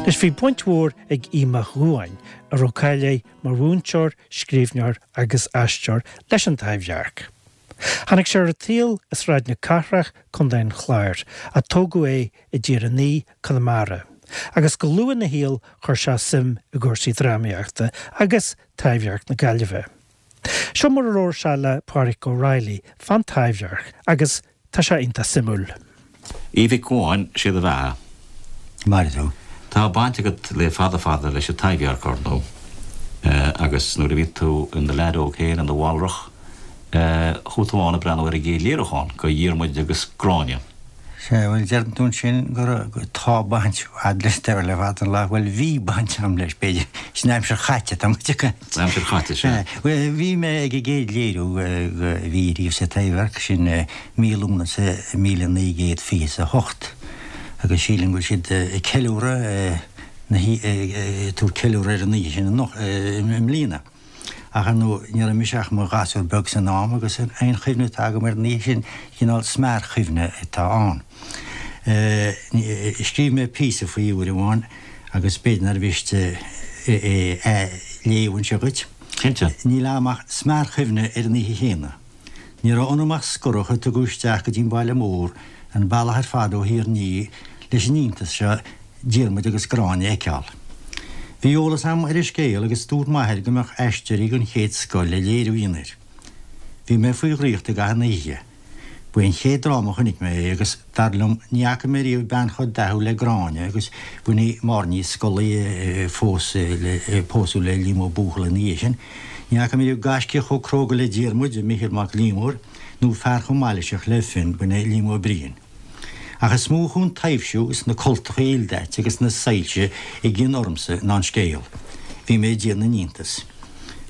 Anois bhí baint mhór ag Aodh Mac Dhubháin, a raibh cáil air mar mhúinteoir, scríbhneoir agus aisteoir, leis an Taibhdhearc. Tháinig sé ar an tsaol i Sráid na Cathrach, Contae an Chláir, ach tógadh é i dTír an Fhia, Conamara, agus go luath ina shaol chuir sé suim i gcúrsaí drámaíochta agus Taibhdhearc na Gaillimhe. Seo mar a labhair sé le Pádraic Ó Raghallaigh fán Taibhdhearc agus tá sé iontach suimiúil. Aoidh Mhic Dhubháin, sé do bheatha. Mairfidh tú. Tá baint agat le fada fada leis an Taibhdhearc, ar ndóigh, agus nuair a bhí tú in do leaid óg féin, in do mhalrach, chuaigh tú ann ag breathnú ar an gcéad léiriúchán de Dhiarmuid agus Gráinne. Sea, bhuel, deireann tú ansin go raibh, tá baint a'd leis ar le fada an lá, bhuel, bhí baint a'm leis, b'fhéidir, san aimsir chaite atá muid ag caint. San aimsir chaite, sea. Bhuel, bhí mé ag an gcéad léiriú a bhí riamh sa Taibhdhearc, sin mí Lúnasa 1928, agus sílim go bhfuil siad ag ceiliúradh na hí, ag tabhairt ceiliúradh ar an oíche sin anocht, i mbliana. Ach ar ndóigh, ní raibh mise ach i mo ghasúr beag san am agus aon chuimhne atá agam ar an oíche sin, cineál smearchuimhne atá ann. Scríobh mé píosa faoi uair amháin agus b'fhéidir nár mhiste é a léamh anseo dhuit. Cinnte. Níl agam ach smearchuimhne ar an oíche chéanna. Ní raibh ionam ach scorach a tugadh isteach go dtí an baile mór, an bealach ar fad ó Thír an Fhia, leis an iontas seo Diarmuid agus Gráinne a fheiceáil. Bhí eolas agam ar an scéal agus dúirt m'athair go mbeadh aisteoirí den chéad scoth le léiriú a dhéanamh air. Bhí mé faoi dhraíocht i gcaitheamh na hoíche. Ba é an chéad dráma a chonaic mé é agus, dar liom, ní fhaca mé riamh bean chomh dathúil le Gráinne agus b'in í Máire Ní Scolaí a phós le, pósadh le Liam Ó Buachalla ina dhiaidh sin. Ní fhaca mé riamh gaiscíoch chomh cróga le Diarmuid, Micheál Mac Liammóir, nó fear chomh mailíseach le Fionn, b'in é Liam Ó Briain. Ach is mó a chuaigh an taibhsiú is na cultacha ildaite agus na soilse i gcion ormsa ná an scéal. Bhí mé ag déanamh na n-iontas.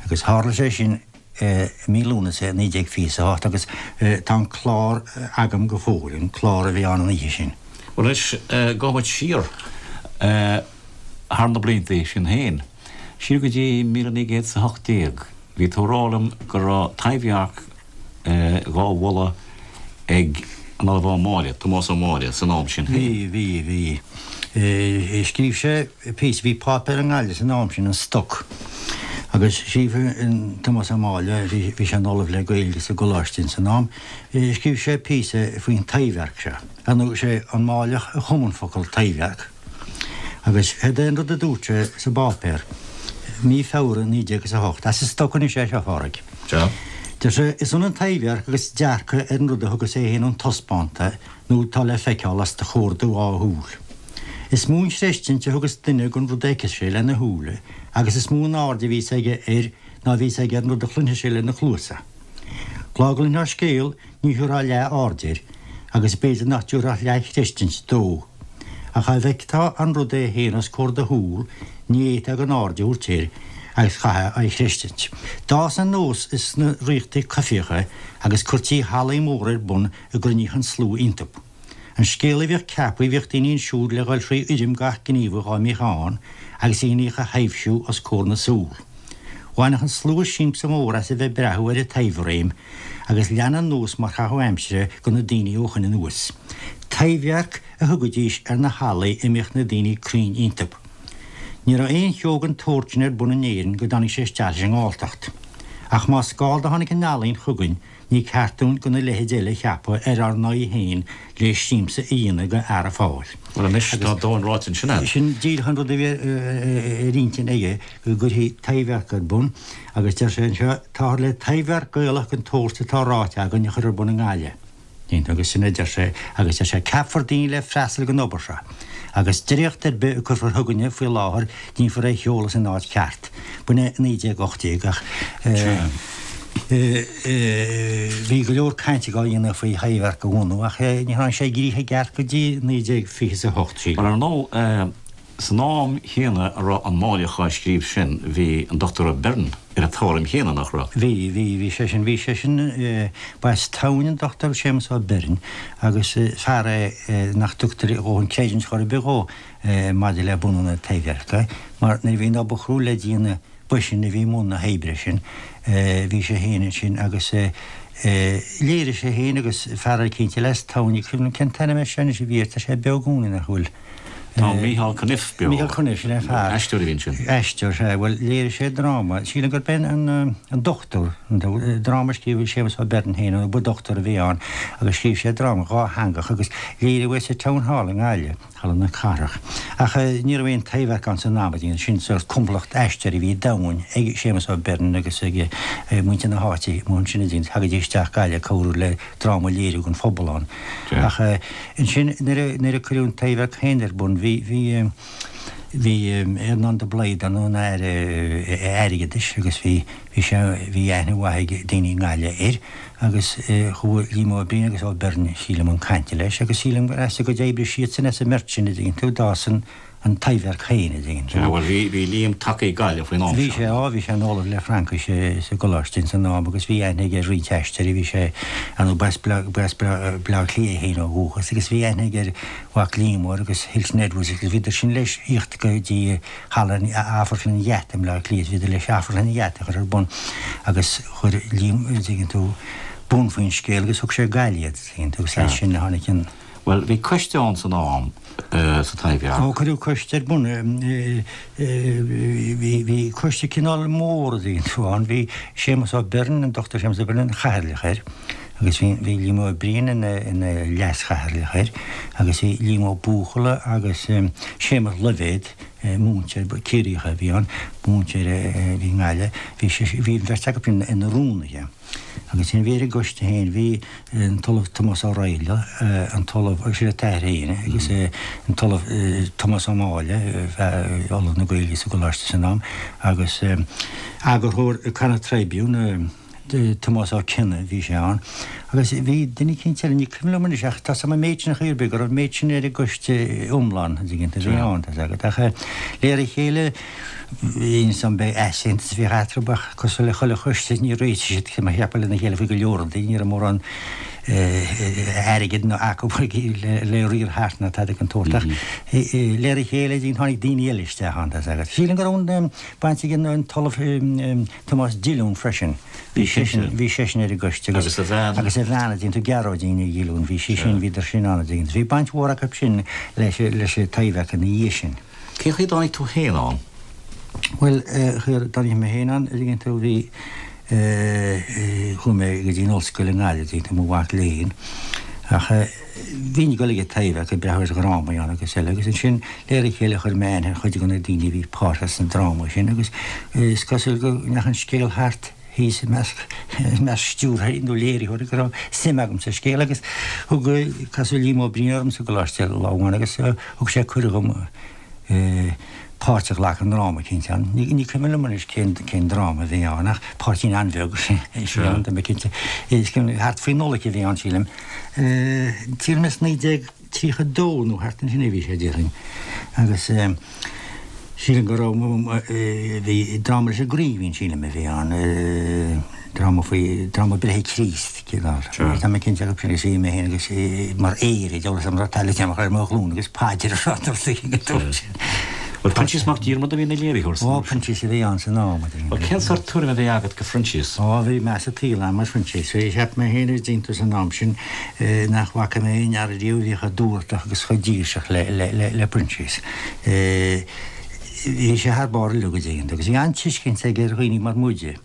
Agus tharla sé sin i mí Lúnasa 1928 agus tá an clár agam go fóill, an clár a bhí ann an oíche sin. Bhuel anois, gabhfaidh muid siar thar na blianta sin féin. Siar go dtí 1918, bhí tú ag rá liom go raibh Taibhdhearc dhá mholadh ag an Ollamh Ó Máille, Tomás Ó Máille, san am sin féin. Bhí, bhí, bhí. Scríobh sé píosa, bhí páipéar i nGaillimh san am sin, An Stoc, agus scríobh Tomás Ó Máille, bhí sé ina Ollamh le Gaeilge sa gcoláiste ins an am, scríobh sé píosa faoin Taibhdhearc seo. Ar ndóigh, sé an Máilleach a chum an focal Taibhdhearc. Agus céard é an rud a dúirt sé sa bpáipéar, mí Feabhra 1908, as an stoc anois é seo, a Phádraig. Sea. Deir sé, Is ionann Taibhdhearc agus dearcadh ar an rud a thugas é féin an taispeánta nó atá le feiceáil os do chomhair do dhá shúil. Is mó an chreistint a thugas duine gon rud a fheiceas sé lena shúile agus is mó an aird a bhíos aige air ná a bhíos aige ar an rud a chluinfeas sé lena chluasa. Lá go gcluinfeá scéal ní thabharfá leath aird air agus b'fhéidir nach dtabharfá leath-chreistint dó. Ach dá bhfeictheá an rud é féin os comhair do shúl, ní fhéadfá gan aird a thabhairt air agus chaithfeá é a chreistint. D'fhás an nós sna ríochtaí coimhthíocha agus cuirtí hallaí móra ar bun a gcruinníodh an slua iontu. An scéal a bhíodh ceaptha bhíodh daoine ansiúd le dhul thrí fhoirm gach gníomha dhá mbíodh ann agus a dheiníodh a thaibhsiú os comhair na súl. Bhaineadh an slua siamsa mór as a bheith ag breathú ar an taibhréim agus lean an nós mar chaitheamh aimsire go na daoine ó shoin anuas. Taibhdhearc a thugaidís ar na hallaí a mbíodh na daoine cruinn iontu. Ní raibh aon cheo den tsórt sin ar bun in Éirinn go dtáinig sé isteach leis an nGalltacht. Ach más Gall do tháinig an ealaín chugainn ní ceart dúinn gona leithéid eile a cheapadh ar ár n-aghaidh féin le siamsa a dhéanamh go fheara Fáil. Bhuel anois, tá dóthain ráite ansin a'd. Sin díreach an rud a bhí ar intinn aige, go gcuirfí Taibhdhearc ar bun, agus deir sé anseo, táthar le Taibhdhearc Gaelach den tsórt atá ráite againn a chur ar bun i nGaillimh. Agus sin a deir sé, agus deir sé, ceapfar daoine le freastal ag an obair seo, agus dréacht ar bith a cuirfear chugainne faoi láthair, déanfar é a sheoladh san áit cheart. B'in é 1918, ach bhí go leor cainte á dhéanamh faoi Thaibhdhearc a bhunú, ach ní tháinig sé i gcrích i gceart go dtí 1928, sílim. Bhuel, ar ndóigh, San am chéanna a raibh an Máilleach á scríobh sin bhí an Dochtúir Ó Beirn ar an tuairim chéanna, nach raibh? Bhí, bhí, bhí seisean, bhí seisean, ba as Tamhain an Dochtúir Séamus Ó Beirn agus fear é nach dtugtar a dhóthain creidiúint chor ar bith dhó maidir le bunú na Taibhdheirce mar nuair a bhí an obair chrua le déanamh b'eisean a bhí i mbun na hoibre sin, bhí sé féin ansin agus léirigh sé féin agus fear eicínt eile as Tamhain, ní cuimhin liom cén t-ainm air sin anois a bhí air, tá sé beo i gcónaí nach bhfuil? Tá Micheál Cunniff beo. Micheál Cunniff, sin é fear. Aisteoir a bhí ansin. Aisteoir, sea. Bhuel, léirigh sé dráma, sílim gurb é an Dochtúir, dráma a scríobh Séamus Ó Beirn féin, nó ba dochtúir a bhí ann, agus scríobh sé dráma dhátheangach agus léiríodh é sa Town Hall i nGaillimh, Halla na Cathrach. Ach ní raibh aon Taibhdhearc ann san am, sin sórt comhlacht aisteoirí a bhí domhain ag Séamus Ó Beirn agus ag muintir na háite amuigh ansin a dhéanamh, thagaidís isteach Gaillimh ag cabhrú le dráma a léiriú don phobal ann. Ach ansin nuair a cuireadh an Taibhdhearc féin ar bun bhí, bhí, bhí Earnán de Blaghd ann ina Aire Airgeadais agus bhí, bhí sé, bhí aithne mhaith ag daoine i nGaillimh air agus chuaigh Liam Ó Briain agus Ó Beirn sílim chun cainte leis agus sílim gur as a gcuid oibre siadsan as an mbeirt sin a dtuigeann tú d'fhás an an Taibhdhearc féin a dtuigeann tú. Sea, bhuel bhí, bhí Liam tagtha ag Gaillimh faoin am seo. Bhí sé, á, bhí sé ina ollamh le Fraincis sa gcoláiste ins an am agus bhí aithne aige ar roinnt aisteoirí, bhí sé, ar ndóigh, b'as Bleá, b'as Bleá Cliath é féin ó dhúchas agus bhí aithne aige ar Mhac Liammóir agus Hilton Edwards agus bhíodar sin leis thíocht go dtí Halla an, Amharclann an Gheata i mBleá Cliath, bhíodar leis Amharclann an Gheata a chur ar bun agus chuir Liam, a dtuigeann tú, bun faoin scéal agus thug sé go Gaillimh iad, a dtuigeann tú, agus as sin a tháinig an. Bhuel, bhí coiste ann san am, sa Taibhdhearc. Ó, cuireadh coiste ar bun. Bhí coiste cineál mór, a dtuigeann tú, ann. Bhí Séamus Ó Beirn, an Dr Séamus Ó Beirn, ina chathaoirleach air agus bhí Liam Ó Briain ina leas-chathaoirleach air agus bhí Liam Ó Buachalla agus Séamus Loibhéad, múinteoir Ciarraíoch a bhí ann, múinteoir a bhí i nGaillimh, bhí an bheirt acu ina rúnaithe. Agus ansin bhí ar an gcoiste féin, bhí an tOllamh Tomás Ó Raghallaigh, an tOllamh, sin a t-athair féin, agus an tOllamh Tomás Ó Máille, Ollamh na Gaeilge sa gcoláiste san am, agus eagarthóir Connacht Tribune, Tomás Ó Cionnaith, bhí sé ann. Agus bhí duine eicínt eile, ní cuimhin liom anois, ach tá 's agam an méid sin ar chaoi ar bith, go raibh an méid sin ar an gcoiste iomlán, an dtuigeann tú, a bhí ann, tá 's agat. Ach de réir a chéile, Bhí ansan beidh easaontas a bhíodh eatarthu ach cosúil le chuile choiste níor réitigh siad mar a cheapfá lena chéile faoi go leor rudaí, ní raibh mórán airgid ná acu le riar thart ná tada den tsórt ach de réir a chéile tháinig daoine eile isteach ann tá 's agat. Sílim go raibh an baint ag an tOllamh Tomás Dillún freisin, bhí seisean bhí seisean ar an gcoiste agus a bhean agus a bhean a dtuigeann tú Gearóidín Ní Dhillúin bhí sí sin bhíodar sin ann a dtuigeann tú. Bhí baint mhór acu sin leis leis an Taibhdhearc ina dhiaidh sin. Cén chaoi a dtáinig tú féin ann? Bhuel, chaoi a dtáinig mé féin ann, a dtuigeann tú, bhí, chuaigh mé go dtí an ollscoil i nGaillimh, a dtuigeann tú, i mo mhac léinn. Ach bhínn ag dul ag an Taibhdhearc ag breathnú ar dhrámaí ann agus eile agus ansin de réir a chéile chuir mé aithne ar chuid de na daoine a bhí páirteach sna drámaí sin agus is cosúil go ndeachaigh an scéal thart thíos i measc stiúrthóirí nó léiritheoirí go raibh suim agam sa scéal agus thug casadh Liam Ó Briain orm sa gcoláiste lá amháin agus thug sé cuireadh dhom páirt a ghlacadh i ndráma eicínt ann. Ní cuimhin liom anois cén cén dráma a bhí ann ach páirtín an-bheag a bhí ann, tá mé cinnte. Is thart faoi Nollaig a bhí ann sílim. Sílim is 19. 32 nó thart ansin a bhí sé, déarfainn, agus sílim go raibh, bhí dráma leis an gCraoibhín, sílim, a bhí ann, dráma faoi, dráma breithe Chríost, cineál. Tá mé cinnte acu sin agus bhí mé féin agus mar aoire, deabhal 'fhios a'm raibh taillte amach ar mo ghlúin agus paidir a rá dul sa dúirt sin. Bhuel, Proinsias Mac Diarmada a bhí ina léiritheoir san Ó, Proinsias a bhí ann san am, a Bhuel, cén sórt tuairim a bhí agat de Phroinsias? Ó, bhí meas an tsaoil a'm ar Phroinsias. Cheap mé féin ar dtús san am sin nach bhfaca mé aon fhear ariamh a bhí chomh dúthrachtach agus chomh dílseach le Proinsias. Bhí sé thar barr uilig, a dtuigeann tú, agus bhí an-tuiscint aige ar dhaoine mar muide.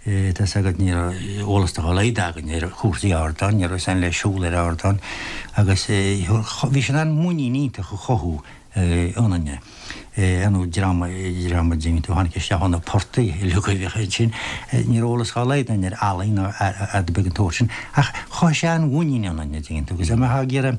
Tá 's agat, ní raibh eolas dá laghad againn ar chúrsaí ardáin, ní raibh 'fhios a'inn le siúl ar ardán agus bhí sé in ann muinín iontach a chothú ionainne. Ar ndóigh, dream, dream a dtuigeann tú, a tháinig isteach ó na portaigh uilig a bhíodh ansin. Ní raibh eolas dá laghad againn ar ealaín ná ar rud ar bith den tsórt sin. Ach chothaigh sé an-mhuinín ionainn, a dtuigeann tú, agus dá mbeifeá ag iarraidh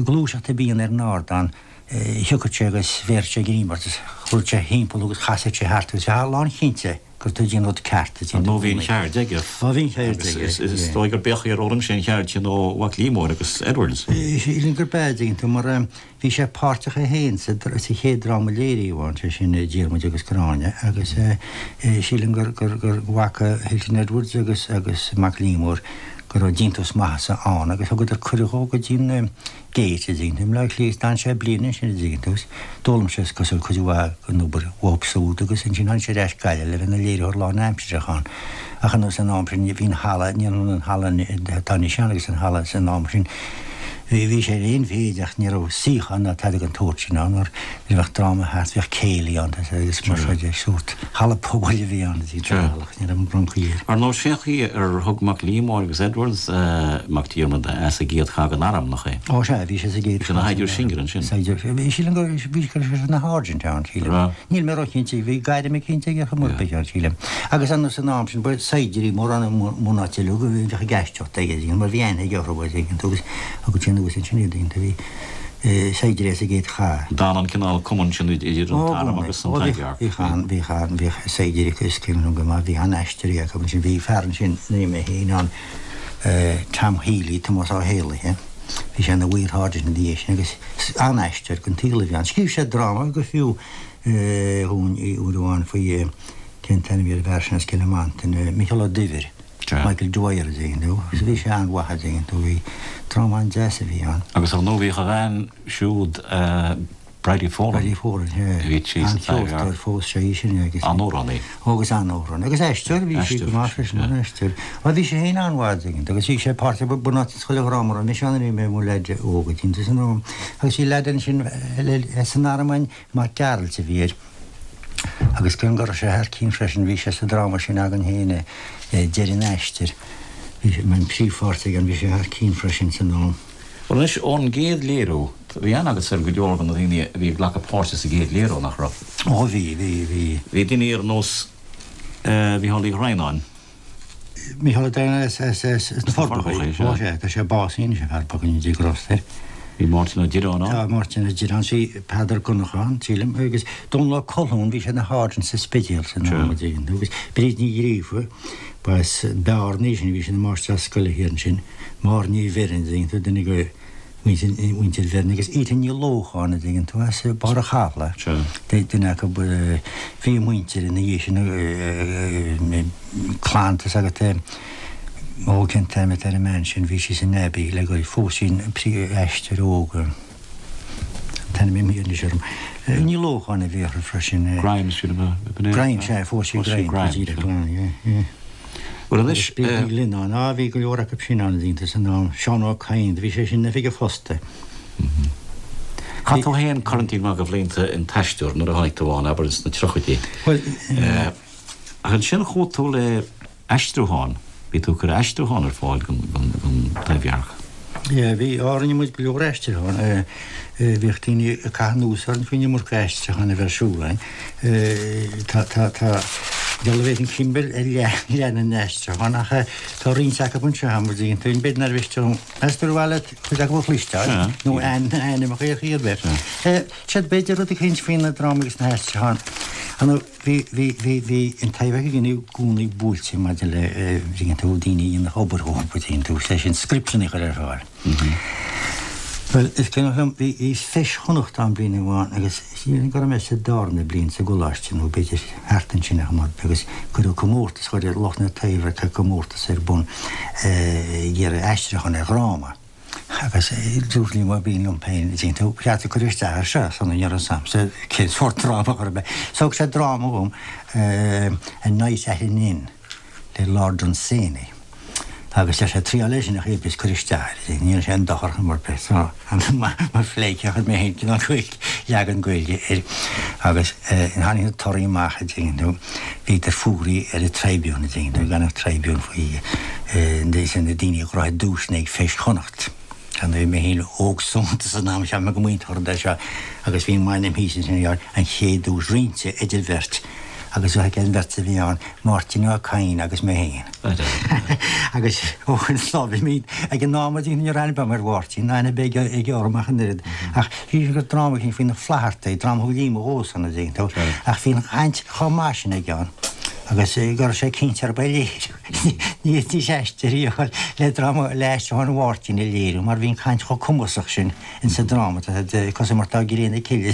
gluaiseacht ar bith a dhéanamh ar an ardán, thiocfadh sé agus bhéarfadh sé greim ort agus chuirfeadh sé thimpeall thú agus chasfadh sé thart agus bheifeá lánchinnte gur tú ag déanamh an rud ceart. Ar ndóigh bhí an cheird aige. Ó bhí an cheird aige. Agus is dóigh gur b'é an chaoi ar fhoghlaim sé an cheird sin ó Mhac Liammóir agus Edwards. Sílim gurb ea, a dtuigeann tú, mar bhí sé páirteach é féin sa chéad dráma a léiríodh ann, sé sin Diarmuid agus Gráinne, agus sílim gur bhfaca Hilton Edwards agus agus Mac Liammóir go raibh déantús maitheasa ann agus thugadar cuireadh dhó go dtí an Gate, a dtuigeann tú, i mBleá Cliath. D'fhan sé bliain ansin, a dtuigeann tú, agus d'fhoghlaim sé, is cosúil, cuid mhaith den obair uathu siúd agus ansin tháinig sé ar ais go Gaillimh le bheith ina léiritheoir lánaimsearach ann. Ach ar ndóigh san am sin, bhí an halla, ní hionann an halla atá anois ann agus an halla san am sin. Bhí sé ar aon mhéid ach ní raibh suíochán ná tada den tsórt sin ann mar nuair a bheadh dráma thart bhíodh céilí ann agus mar seo de, sórt halla pobail a bhí ann a dtí ní raibh an broncaí air. Ar ndóigh sé an chaoi ar thug Mac Liammóir agus Edwards Mac Diarmada as an gcéad chath den arm, nach é? Ó sea, bhí sé sa gcéad Bhí sé ina shaighdiúir sinsir ansin. Saighdiúir, bhí, sílim go, bhí sé ina sháirsint ann, sílim. Raibh? Níl mé róchinnte, bhí gairm eicínt aige chomh maith, b'fhéidir, sílim. Agus ar ndóigh san am sin ba saighdiúirí mórán i mbunáite uilig a bhíodh ag aisteoireacht aige, mar bhí aithne aige orthu, a dtuigeann tú, agus thugadh sé anuas ansin iad, a bhí saighdiúirí as an gcéad chath. D'fhan an cineál cumann sin idir an t-arm agus an Taibhdhearc. Bhíodh an, bhíodh an, bhíodh saighdiúirí acu is cuimhin liom go maith, bhí an-aisteoirí acu ansin, bhí fear ansin, ní mé féin ann, Tom Healy, Tomás Ó Héalaithe, bhí sé ina mhaorsháirsint ina dhiaidh sin agus an-aisteoir den tsaol a bhí ann. Scríobh sé dráma go fiú dhúinn uair amháin faoi, cén t-ainm a bhí ar an bhfear sin as Cill Mhantáin, Micheál Ó Duibhir, Michael Dwyer a dtuigeann tú, agus bhí sé an-mhaith a dtuigeann tú, bhí dráma an-deas a bhí ann. Agus ar ndóigh bhíodh a bhean siúd, Bridie Folan. Bridie Folan, sea. A bhí sí sa Taibhdhearc. An-cheoltóir fós sé í sin agus. An-amhránaí. Ó agus an-amhránaí. Agus aisteoir, bhí sí go maith freisin, an-aisteoir. Bhuel bhí sí féin an-mhaith a dtuigeann tú agus bhí sé páirteach bunáite sa chuile dhráma a raibh mise ann nuair a bhí mé i mo leaid óg a dtuigeann tú san am. Agus bhí leaid ansin san arm againn, Mac Gearailt a bhí air. Agus cé go raibh sé thar cionn freisin, bhí sé sa dráma sin againn féin, Deireadh an Aistir. Bhí sé, an príomhpháirt aige ann, bhí sé thar cionn freisin san am. Bhuel anois, ón gcéad léiriú, bhí aithne agatsa ar go leor de na daoine a bhí ag glacadh páirte sa gcéad léiriú, nach raibh? Ó bhí, bhí, bhí. Bhí daoine ar nós Mhícheál Uí Dhroighneáin. Mícheál Ó Droighneáin as, as, as, as na Forbacha. Ó sea, tá sé básaithe anois, an fear bocht, go ndéana Dia grásta air. Bhí Máirtín Ó Direáin ann. Tá Máirtín Ó Direáin, bhí Peadar Donnchadha ann, sílim, agus Dónal Ó Colchúin, bhí sé ina sháirsint sa Spidéal san am, agus Bríd Ní Ghríofa, ba as Bearna í sin, bhí sí ina máistreás scoile thiar ansin. Máire Ní Bheirn, a dtuigeann tú, duine de mhuintir Bheirn, agus Ita Ní Lócháin, a dtuigeann tú, as Barr a' Chathlaigh, duine acu, bhí a muintir ina dhiaidh sin, clann, tá's agat, ó cén t-ainm atá ar an mbean sin, bhí sí san Abbey le go, phós sí an príomh-aisteoir óg, an t-ainm imithe anois orm, Ní Lócháin a bhí uirthi freisin. Grimes, sin ab ea? Grimes, sea, phós sí Grimes, go díreach, yeah, yeah. Bhuel anois. Bhí Ní Ghlinn ann. Á, bhí go leor acu sin ann, iontu san am. Seán Ó Cadhain, do bhí sé sin in oifig an phosta. Chaith tú féin corrantín maith de bhlianta in Aisteoir nuair a tháinig tú ann, abair ins na tríochaidí. Bhuel. Ach ansin chuaigh tú le aistriúchán, bhí tú ag cur aistriúchán ar fáil don Taibhdhearc. Yeah, bhí, á, rinne muid go leor aistriúchán. Bhíodh daoine ag caitheamh anuas orainn faoin iomarca aistriúchán a bheith ar siúl againn. Tá, tá, tá, dealbh bhféadfainn cuimhneamh ar leath, leath na n-aistriúchán ach tá roinnt acu anseo agam, an dtuigeann tú, b'fhéidir nár mhiste dom, meas tú ar mhaith leat cuid acu a chloisteáil nó ainmneacha ar chaoi ar bith. Siad b'fhéidir rud eicínt faoi na drámaí agus na haistriúcháin. Bhí, bhí, bhí, bhí an Taibhdhearc againn i gcónaí buailte maidir le, an dtuigeann tú, daoine a dhéanfadh obair dhóibh, an dtuigeann tú, sé sin scripteanna a chur ar fáil. Bhuel, is cuimhneach liom, bhí, bhí Feis Chonnacht ann bliain amháin agus sílim go raibh mé sa darna bliain sa gcoláiste nó b'fhéidir thart ansin a chomh agus cuireadh comórtas, chuir lucht na Taibhdheirce comórtas ar bun ag iarraidh aistriúchán ar dhráma. Agus dúirt Liam Ó Briain liom féin, an dtuigeann tú, ba cheart cur isteach air seo, san ní raibh a fhios a'msa cén sórt dráma a chur So thug sé dráma dhom, A Night at an Inn le Lord Dunsany. Agus deir sé, triáil é sin a chéad is cuir isteach air, ní dhéanfaidh sé aon dochar chor ar bith. So, mar phleidhce chuir mé féin cineál Gaeilge, leagan Gaeilge air. Agus tháinig na torthaí amach, an dtuigeann tú, bhíodar fuaraithe ar an Tribune, an dtuigeann tú, gan an Tribune faoi na daoine a ghnóthaigh duaiseanna ag Feis Chonnacht. Ar ndóigh, mé féin óg soineanta san am, cheap mé go mb'iontach an rud é seo agus bhí m'ainm thíos ansin ar an chéad duais roinnte idir bheirt agus bheadh an bheirt a bhí ann, Máirtín Ó Cadhain agus mé féin. Agus ó shin lá bhí mé ag an am a dtí ní raibh aithne agam ar Mháirtín, ná aithne ar bith aige orm ach an oiread. Ach bhí sé gur dráma eicínt faoi na Flaitheartaigh, dráma a thug Liam dhomhsa an dtuigeann tú, ach bhí an chaint chomh maith sin aige ann agus go raibh sé cinnte arb é léiriú. Ní fhéadfaidís aisteoirí a fháil le dráma le aistriúchán Mháirtín a léiriú mar bhí an chaint chomh cumasach sin insa dráma, tá sé cosúil mar tá gréin na cille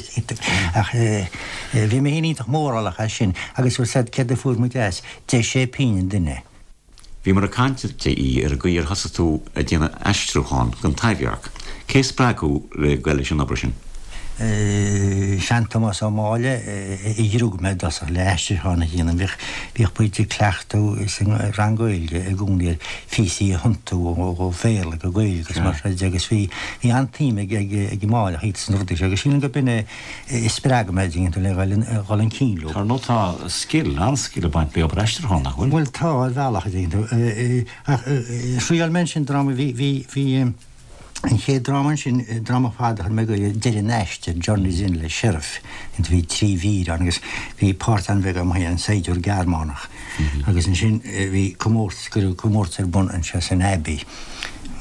ach bhí mé féin iontach mórálach as sin agus bhfuil 's a'd céard a fuair muid as, deich sé pingin an duine. Bhíomar ag caint a DE ar an gcaoi ar thosaigh tú ag déanamh aistriúchán don Taibhdhearc. Cé a spreag thú le goil leis an obair sin? Sean-Tomás Ó Máille a ghrug mé i dtosach le aistriúchán a dhéanamh. Bhíodh, bhíodh muid ag cleachtadh sa rang Gaeilge i gcónaí ar phíosaí a thiontú ó Bhéarla go Gaeilge agus mar sin de agus bhí, bhí an-tsuim ag, ag, ag an Máilleach sna rudaí seo agus sílim gurb in é a spreag mé a dtuigeann tú le dhul, dhul chun cinn leo. Ar ndóigh tá scil, an-scil ag baint le obair aistriúcháin, nach bhfuil? Bhuel tá, ar bhealach a dtuigeann tú. Ach thriail mé ansin dráma, bhí, bhí, bhí, An chéad dráma ansin, dráma fada a chuir mé go Deireadh an Aistir, Journey's End le Sheriff, bhí 3 mhír ann agus bhí páirt an-bheag agam féin, an saighdiúir Gearmánach. Agus ansin bhí comórtas, cuireadh comórtas ar bun anseo san Abbey,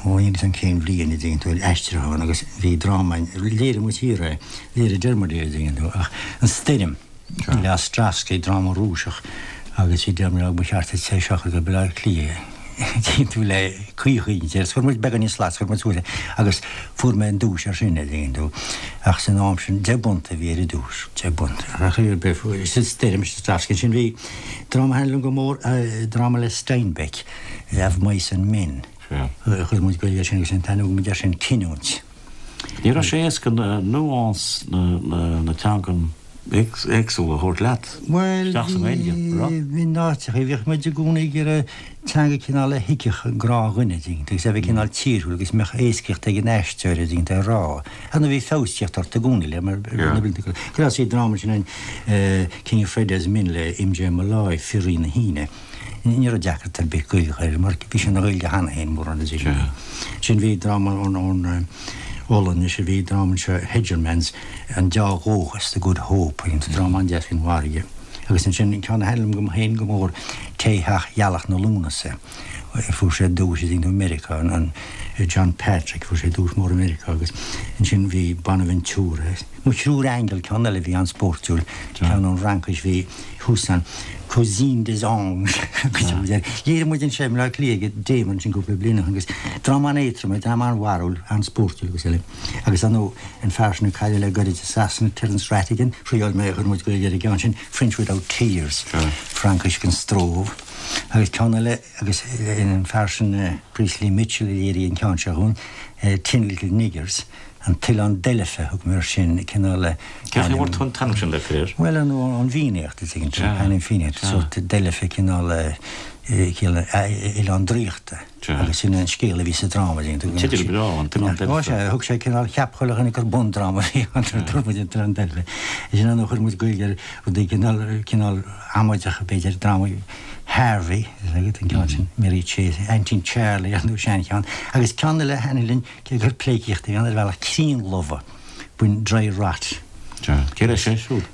ó níl 'fhios a'm cén bhliain a dtuigeann tú, aistriúchán agus bhí dráma, léirigh muid thiar é, léirigh Diarmuid é a dtuigeann tú, ach An Stoirm. Le Ostrovsky, dráma Rúiseach, agus bhí Diarmuid á ba cheart duit é seo a chur go Baile Átha Cliath dtuigeann tú le caoi chuig agus chuir muid beagán níos slat, chuir muid suas é agus fuair mé an duais ar sin, a dtuigeann tú. Ach san am sin, 10 bpunt a bhí ar an duais, 10 bpunt. Ach ar bith, sin Stoirm, Ostrovsky. Ansin bhí dráma a thaitnigh liom go mór, dráma le Steinbeck, Of Mice and Men. Chuir muid Gaeilge air sin agus an t-ainm a thug muid air sin Cinniúint. Ní raibh sé éasca nuance na teangan éagsúla a thabhairt leat isteach sa nGaeilge, an raibh? Bhuel, in áiteachaí bhíodh muid i gcónaí ag iarraidh teanga cineál a thuigfeadh an gnáthdhuine, dtuigeann tú, agus a bheith cineál tírúil agus mbeadh éascaíocht ag an aisteoir, a dtuigeann tú, a rá. Ar ndóigh bhí feabhas ag teacht ort i gcónaí le mar na blianta go raibh sí dráma sin an King of Friday's Men le M.J. Molloy, Fir-Rí na hAoine. Ní raibh deacracht ar bith Gaeilge a chur air mar bhí sé ina Ghaeilge cheana féin mórán de sin. Sin bhí dráma ón Ollainnis a bhí dráma anseo Hegermans, An Deá-Dhóchas, The Good Hope, an dráma an-deas faoin bhfarraige. Agus ansin an ceann a thaitnigh liom féin go mór, Tae Theach Ghealach na Lúnasa. Fuair sé duais i Meiriceá, an John Patrick, fuair sé duais mór i Meiriceá agus ansin bhí Bonaventura. Mo Thriúr Aingeal, ceann eile a bhí an-spóirtiúil, ceann ón Fhraincis, bhí Hussane, Cousine des Anges, Léirigh muid anseo i mBleá Cliath ag Damer ansin cúpla bliain ó shin agus dráma an-éadrom é, dráma an-bharrúil, an-spóirtiúil agus eile. Agus ar ndóigh, an fear sin a cailleadh le goirid i Sasana, Terence Rattigan, thriáil mé, chuir muid Gaeilge ar an gceann sin, French Without Tears, Fraincis gan stró. Agus ceann eile, agus an fear sin Priestley Mitchell a léirigh an ceann seo dhúinn, Tin Little Niggers, An tOileán Deilfe a thug mé air sin, cineál ainm. Cén chaoi a bhfuair tú an t-ainm sin le fir air? Bhuel, ar ndóigh, ón bhFiannaíocht, a dtuigeann tú, ainm Fiannaíochta, sórt Deilfe, cineál oileán draíochta. Agus sin an scéal a bhí sa dráma, a dtuigeann tú. Teideal breá, An tOileán Deilfe. Ó, sea, thug sé cineál, cheap chuile dhuine gur bundráma a bhí ann, nuair a dúirt muid An tOileán Deilfe. Sin an chuir muid Gaeilge ar rudaí cineál, cineál amaideach, b'fhéidir, drámaí Harvey, an ceann sin, Mary Chase, Aintín Charlie, ar ndóigh, seancheann. Agus ceann eile a thaitnigh linn, Cé gur pleidhcíocht a bhí ann ar bhealach críonlobhadh, b'in dry rot. Cé leis é siúd?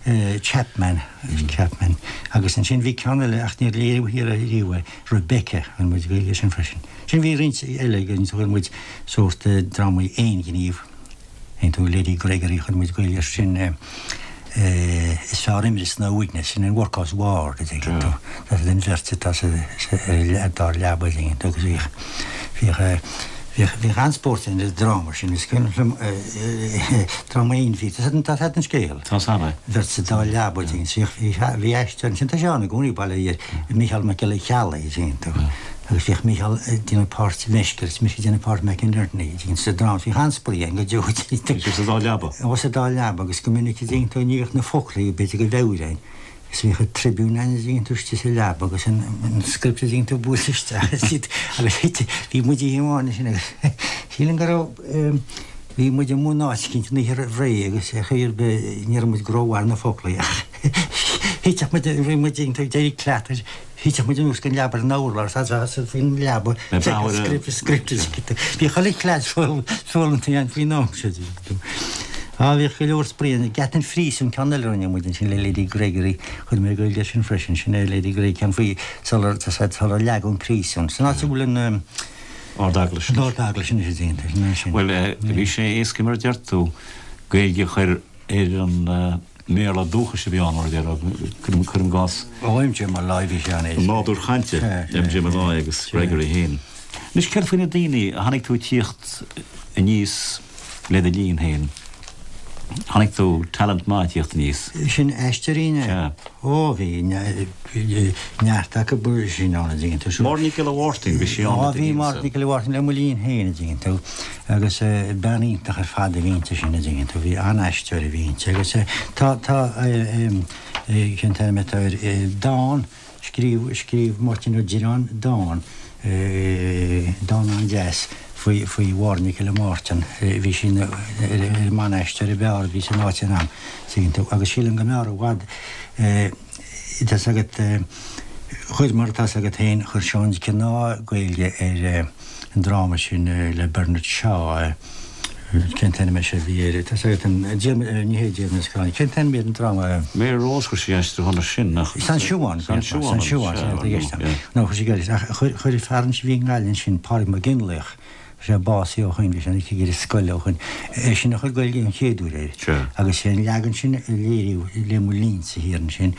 Chapman, Chapman. Agus ansin bhí ceann eile ach níor léiríodh thiar ariamh é, Rebecca, chuir muid Gaeilge air sin freisin. Sin bhí roinnt eile againn, chuir muid sórt drámaí aonghnímh, aon tú Lady Gregory, chuir muid Gaeilge air sin. Is fearr imreas ná uaigneas, sin an workhouse ward a dtuigeann tú. Tá siad an bheirt atá sa dá leaba a dtuigeann tú agus bhíodh, bhíodh, bhíodh, bhíodh an-spórt ann ar an dráma sin. Is cuimhin liom dráma aon bhí, tá a fhios agat an scéal. Tá a fhios agam. Bheirt sa dá leaba a dtuigeann tú. Bhíodh, bhí aisteoir ansin, tá sé ann i gcónaí, bail ó Dhia air, Mícheál Mac Giolla Cheallaigh a dtuigeann tú. Agus bhíodh Mícheál ag déanamh páirt Mheisce agus mise ag déanamh páirt McInerney sa dráma. Bhíodh an-spraoi againn go deo. Bhí sibh sa dá leaba? Ó, sa dá leaba agus go minic a dtuigeann tú ní bheadh na foclaí b'fhéidir go mheabhair againn. Agus bhíodh an Tribune againn a dtuigeann tú istigh sa leaba agus an script a dtuigeann tú buailte isteach agus bhí muid oíche amháin ansin agus sílim go raibh bhí muid i mbun áit eicínt an oíche roimh ré agus ar chaoi ar bith ní raibh muid go rómhaith ar na foclaí ach thitfeadh muid bhí muid ag éirí cleata Thitfeadh muid anuas den leaba ar an urlár, is faoin leaba, script, script, script. Bhí chuile chleas foghlamtha againn faoin am seo. Á, bhíodh go leor spraoi ann. Geata an Phríosúin, ceann eile a rinne muid ansin le Lady Gregory. Chuir mé Gaeilge air sin freisin. Sin é Lady Gregory, ceann faoi sular, sular leagadh an príosún. San áit a bhfuil an. Ard-Eaglais. An Ard-Eaglais anois a déanta. Sin é sin. Bhuel, bhí sé éasca mar a deir tú, Gaeilge a chur ar an mBéarla dúchais a bhí ann, mar a déarfá, cuirim i gcás. Ó, M.J. Molloy, bhí sé an-éasca. Nádúr chainte M.J. Molloy agus Gregory féin. Anois, céard faoi na daoine a chonaic tú ag tíocht aníos le do linn féin? Chonaic tú talent maith ag tíocht aníos. Sin aisteoirí inné? Sea. Ó, bhí neart acu sin ann, a dtuigeann tú. Máire Nic Giolla Mháirtín, bhí sí ann Ó, bhí Máire Nic Giolla Mháirtín le mo linn féin, a dtuigeann tú. Agus bean iontach ar fad a bhí inti sin, a dtuigeann tú. Bhí an-aisteoir a bhí inti. Agus tá, tá, cén t-ainm atá air, dán, Scríobh, scríobh Máirtín Ó Direáin dán, dán an-deas faoi, faoi Mháire Nic Giolla Mháirtín. Bhí sí ina, ar an mban-aisteoir ab fhearr a bhí san áit san am, tuigeann tú. Agus sílim go mb'fhearr i bhfad, tá's agat, chuir, mar atá's agat féin, chuir Seán Mac Cionnaith Gaeilge ar an dráma sin le Bernard Shaw, Cén t-ainm é seo a bhí air? Tá's agat an, Diarmaid, ní hé Diarmaid na Scráine, cén t-ainm ar an dráma? Mary Rose, chuir sí aistriúchán air sin, nach? San Siubhán, San Siubhán, San Siubhán, sea, tá i gceist agam. No, chuir sí Gaeilge, ach chuir, chuir fear ansin a bhí i nGaillimh ansin, Pádraig Mac Fhionnlaoich, tá sé básaithe ó shoin, bhí sé ina chigire scoile ó shoin, eisean a chuir Gaeilge an chéad uair air. Sea. Agus sé an leagan sin a léiríodh le mo linnse thiar ansin,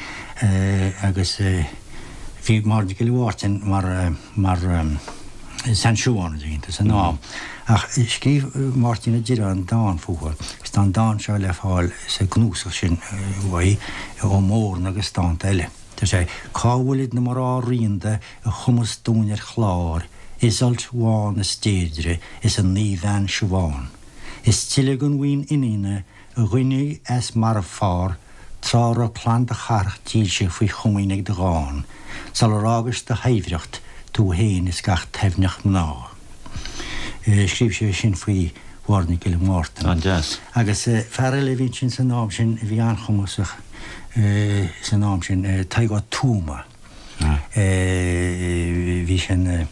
agus bhí Máire Nic Giolla Mháirtín mar, mar San Siubhán, a dtuigeann tú, san am. Ach scríobh Máirtín Ó Direáin dán fúithi, agus tá an dán seo le fáil sa gcnuasach sin uaidh, Ó Mórna agus dánta eile. Deir sé, Cá bhfuilid na mná ríonda a chumas dúinn ar chlár, Iseult bhán is Deirdre is an naomhbhean Siobhán? Is tuilleadh den bhuíon iníona A ghoineadh as marbhfhear, tráth raibh clann do chathrach dílse faoi chomaoin ag do dhán, sular fhágais do shaibhreacht, tú féin is gach taibhneach mná. Scríobh sé sin faoi Mháire Nic Giolla Mhártain. An-deas. Agus fear eile a bhí ansin san am sin a bhí an-chumasach san am sin, Tadhg Ó Tuama. Bhí sé ina,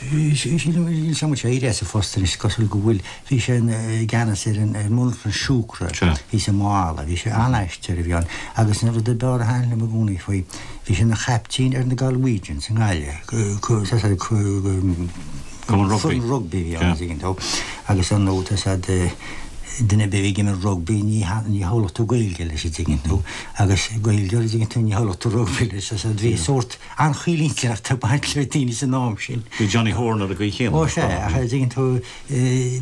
sílim, níl 's agam an bhfuil sé éirithe as a phost anois, is cosúil go bhfuil, bhí sé i gceannas ar an monarchan siúcra thíos i Maigh Eala, bhí sé an-aisteoir a bhí ann agus an rud ab fhearr a thaitin liom i gcónaí faoi, bhí sé ina chaiptín ar na Galwegians i nGaillimh, Cumann rugbaí. Foireann rugbaí a bhí ann, tuigeann tú, agus ar ndóigh tá 's a'd, duine ar bith a bhí ag imirt rugbaí ní ní shamhlódh tú Gaeilge leis an dtuigeann tú, agus Gaeilgeoir an dtuigeann tú ní shamhlódh tú rugbaí leis, tá 's a'd bhí sórt an-chaolintinneacht ag baint le daoine san am sin. Bhí Johnny Horan ar an gcaoi chéanna. Ó sea, ach an dtuigeann tú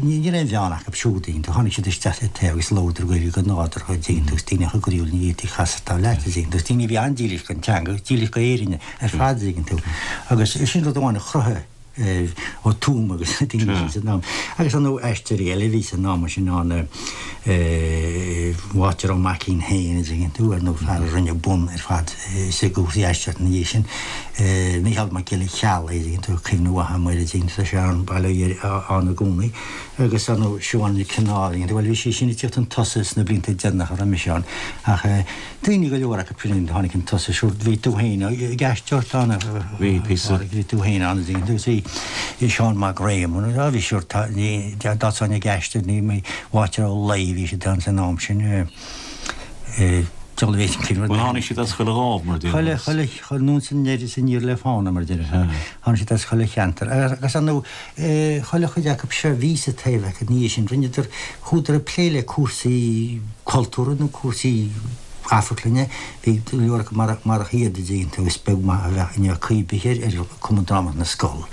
ní ní raibh aon bheann acu siúd, tuigeann tú, tháinig siad isteach le taobh agus labhradar Gaeilge go nádúrtha an dtuigeann tú, agus daoine chomh groíúil ní fhéadfaí casadh leat an dtuigeann tú, agus daoine a bhí an-dílis don teanga, dílis go Éirinn ar fad an dtuigeann tú, agus sin rud amháin a chruthaigh Ó Tuama agus na daoine sin san am. Agus ar ndóigh aisteoirí eile a bhí san am sin ann, Wáiter Ó Maicín féin, an dtuigeann tú, ar ndóigh fear a rinne bun ar fad sa gcúrsaí aisteoireachta ina dhiaidh sin, Mícheál Mac Giolla Cheallaigh, an dtuigeann tú, cuimhne mhaith agam air, an dtuigeann tú, tá sé ann, bail ó Dhia air, ann i gcónaí. Agus ar ndóigh Siobhán Nic Cionnaith, an dtuigeann tú, bhuel bhí sí sin ag tíocht chun tosaigh sna blianta deireanacha a raibh mise ann ach, Daoine go leor acu sin a tháinig chun tosaigh, sure bhí tú féin ag aisteoireacht ann a Bhí, píosa. Phádraig, bhí tú féin ann agus bhí Seán Mac Réamoinn, á bhí sure tá, ní, dá dtosóinn ag aisteoireacht ní, ní, Wáiter Ó Laoi, bhí siad ann san am sin, eh, diabhal a bhí sin Bhuel tháinig siad as chuile dhámh mar a déarfá. Chuile, chuile, chuile, anonn is aniar is aniar le fána mar a déarfá. Tháinig siad as chuile cheantar agus ar ndóigh, Chuile chuid acu seo a bhí sa Taibhdhearc ina dhiaidh sin, rinneadar, chuadar ag plé le cúrsaí cultúrtha nó cúrsaí amharclainne, bhí go leor acu marach iad a dtuigeann tú, is beag maith a bheadh inniu cuí bith ar Chumann Drámaíochta na Scol,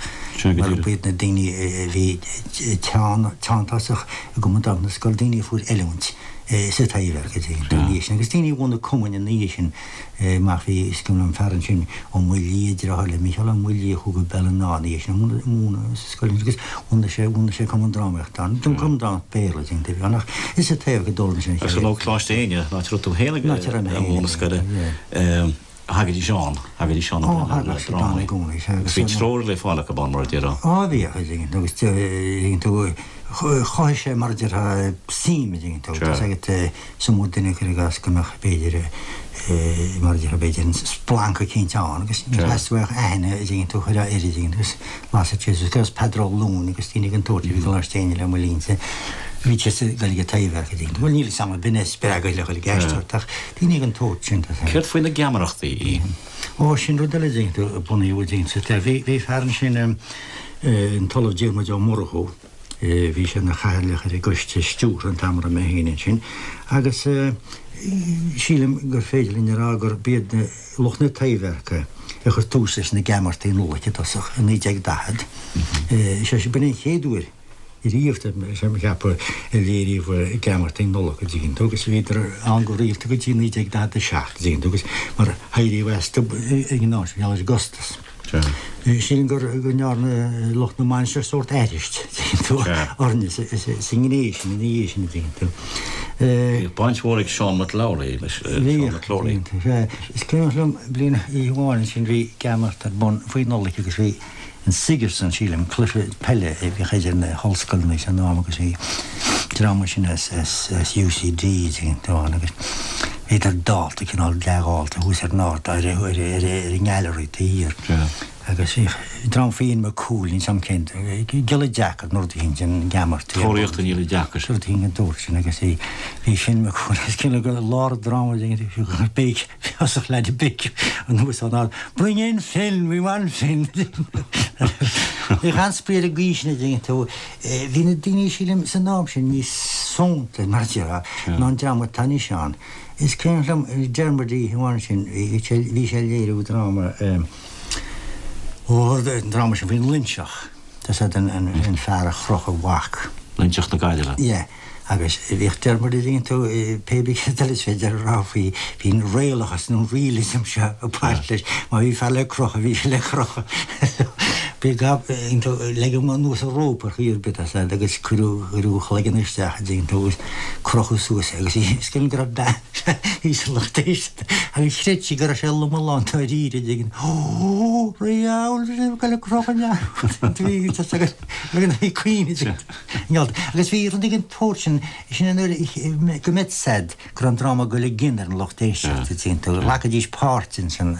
mar ba iad na daoine a bhí teanntásach i gCumann Drámaíochta na Scol, daoine a fuair oiliúint sa Taibhdhearc a dtuigeann tú, ina dhiaidh sin, agus daoine a bhunaigh cumainn ina dhiaidh sin. Amach bhí, is cuimhin liom fear ansin, Ó Maoildhia, deartháir le Mícheál Ó Maoildhia a chuaigh go Béal an Átha ina dhiaidh sin, ag múineadh sa scoil ansin agus bhunaigh sé, bhunaigh sé cumann drámaíochta ann, cumann drámaíochta Béarla a bhí ann ach is sa Taibhdhearc a d'fhoghlaim sé an Agus ar ndóigh Coláiste Éinne, an áit a raibh tú féin ag múineadh scoile, thagaidís ann, thagaidís ann ag múineadh na drámaí. Agus bhí treoir le fáil acu ann mar a déarfá. Á bhíodh, a dtuigeann tú, agus tuigeann tú, chothaigh sé mar a déarfá suim, a dtuigeann tú, tá 's agat, Is iomaí duine cuir i gcás go mbeadh b'fhéidir mar a déarfá b'fhéidir an splanc eicínt ann agus níor theastaigh uaidh ach aithne a dtuigeann tú a chur air a dtuigeann tú agus lasfadh sé suas agus Peadar Ó Luain agus daoine den tsórt a bhí i gColáiste Éinne le mo linnse bhí siad ag dul ag an Taibhdhearc a dtuigeann tú. Bhuel níl 'fhios a'm ab in é a spreag iad le dhul ag aisteoireacht ach daoine den tsórt sin tá Céard faoi na geamaireachtaí? Ó sin rud eile a dtuigeann tú a bunaíodh a dtuigeann tú. Bhí bhí fear ansin an tOllamh Diarmuid Ó Murchú Bhí sé ina chathaoirleach ar an gcoiste stiúrtha an t-am a raibh mé féin ansin agus sílim gur féidir linn a rá gurb iad lucht na Taibhdheirce a chuir tús leis na Geamaireachtaí Nollag i dtosach i 1940. Sé sin, b'in an chéad uair. riamh, tá mé ag ceapadh, a léiríodh geamaireachtaí Nollag, an dtuigeann tú, agus bhíodar ann go rialta go dtí 1947, an dtuigeann tú, agus mar éiríodh astu ag an am sin, mar gheall ar an gcostas. Sílim go ndearna lucht na mainistreach sórt aithris, an dtuigeann tú, orainne sa ngné sin ina dhiaidh sin, an dtuigeann tú. Bhíodh baint mhór ag Seán McLowry leis, Seán McLowry. Bhíodh, sea. Is cuimhin liom bliain oíche amháin ansin bhí geamaireacht ar bun faoi Nollaig agus bhí an Sigerson, sílim, cluiche peile a bhíodh idir na hollscoileanna san am agus bhí dream ansin as UCD ann agus bhíodar dálta, cineál dea-dhálta thuas ar an ard, ar an ngallery taobh thiar agus bhíodh dream Finn McCool, níl 's a'm cén, giolla deacair nó rud éicint an gheamaireacht. Tóraíocht an ghiolla deacair. Rud éicint den tsórt sin agus bhí Finn McCool agus cineál go lár an dráma béic Thosaigh leaid ag béiceadh anuas ón ard, Bring in Finn, we want Finn! Bhíodh an-spraoi ar an gcaoi sin, a dtuigeann tú. Bhí na daoine, sílim, san am sin níos fónta, mar a déarfá, ná an dream atá anois ann. Is cuimhin liom Dermot oíche amháin sin, bhí sé ag léiriú dráma, ó, an dráma sin faoin Loinseach, tá 's a'd, an fear a chroch a mhac. Loinseach na Gaillimhe. Yeah. Agus bhíodh Dermot a dtuigeann tú, pé bith céard eile is féidir a rá faoi, bhí an réalachas nó an realism seo ag baint leis. Má bhí fear le crochadh, bhí sé le crochadh. Bhí gab, dtuigeann tú, leigeadh anuas an rópa ar chaoi ar bith, tá 's a'd, agus cuireadh, cuireadh a chloigeann isteach, a dtuigeann tú, agus crochadh suas é. Agus is cuimhin go raibh bean thíos sa lucht éisteachta agus chreid sí go raibh sé lom lán dáiríre, a dtuigeann, Ó, riabhal, bhí sé ag goil a crochadh leath. Bhí, tá 's agat, bhí cuimhne. Agus bhí rud den tsórt sin, sin an uair go mbeadh 's a'd go raibh an dráma ag dul i gcion ar an lucht éisteachta, tuigeann tú, ghlacaidís páirt ins an,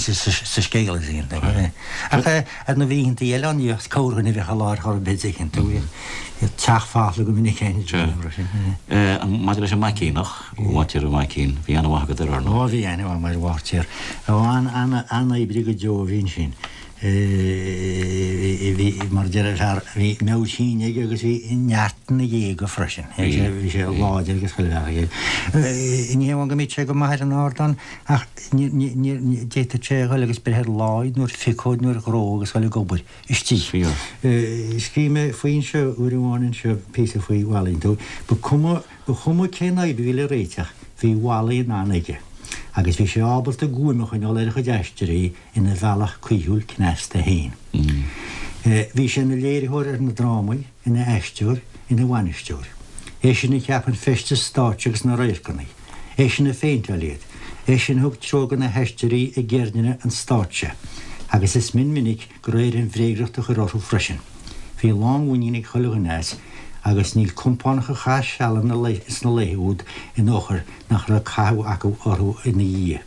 sa scéal, tuigeann tú. Ach ar na oícheantaí eile ann, ní bheadh corrdhuine a bheadh i láthair chor ar bith, tuigeann tú, bhíodh teach folamh go minic féin. Maidir leis an Maicíneach, Bháirtéir Ó Maicín, bhí aithne mhaith agat air, ar ndóigh. Ó, bhí aithne mhaith agam ar Bháirtéir. An-oibrí go deo a bhí ansin. Bhí, mar a deir fear, bhí meabhair thinn aige agus bhí neart ina ghéaga freisin. Bhí sé láidir agus chuile bhealach aige. Ní hamháin go mbíodh sé go maith ar an ardán ach d'fhéadfadh sé a dhul agus breith ar láí nó ar phiocóid nó ar dhró agus dhul ag obair istigh. Scríobh mé faoi anseo uair amháin anseo píosa faoi Wally. Ba cuma, ba chuma cén fhadhb a bhí le réiteach, bhí Wally in ann aige agus bhí sé ábalta guaim a choinneáil ar a chuid aisteoirí ina bhealach caoithiúil cneasta féin. Bhí sé ina léiritheoir ar na drámaí, ina aisteoir, ina bhainisteoir. Eisean a cheap an feisteas stáitse agus na radharcanna. Eisean a phéinteáil iad. Eisean a thug treoir do na haisteoirí i gceirdeanna an stáitse. Agus is mion minic go raibh air an bhréagriocht a chur orthu freisin. Bhí lánmhuinín ag chuile dhuine as, agus níl compánach a chaith seal sna laetha úd ina fhochair nach raibh cathú acu orthu ina dhiaidh.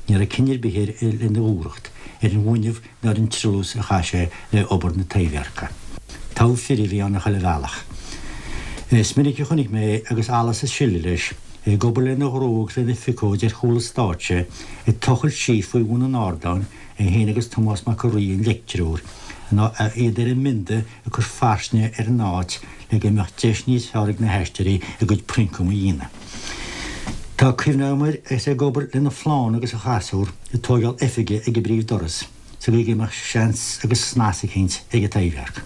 Ní raibh cionn ar bith air lena dhúthracht, ar an bhfuinneamh ná ar an treallús a chaith sé le obair na Taibhdheirce. Togha fir a bhí ann ar chuile bhealach. Is minic a chonaic mé é agus allas is sileadh leis, é ag obair lena dhró agus lena phiocóid ar chúl an stáitse, ag tochailt síos faoi bhun an ardáin, é féin agus Tomás Mac a' Rí, an leictreoir, iad ar a mbionda ag cur fairsinge ar an áit le go mbeadh deis níos fearr ag na haisteoirí a gcuid prioncam a dhéanamh. Tá cuimhne agam air is é ag obair lena phlánna agus a chasúr ag tóigeáil oifige ag an bpríomh-doras sa gcaoi go mbeadh seans agus snas eicínt ag an Taibhdhearc.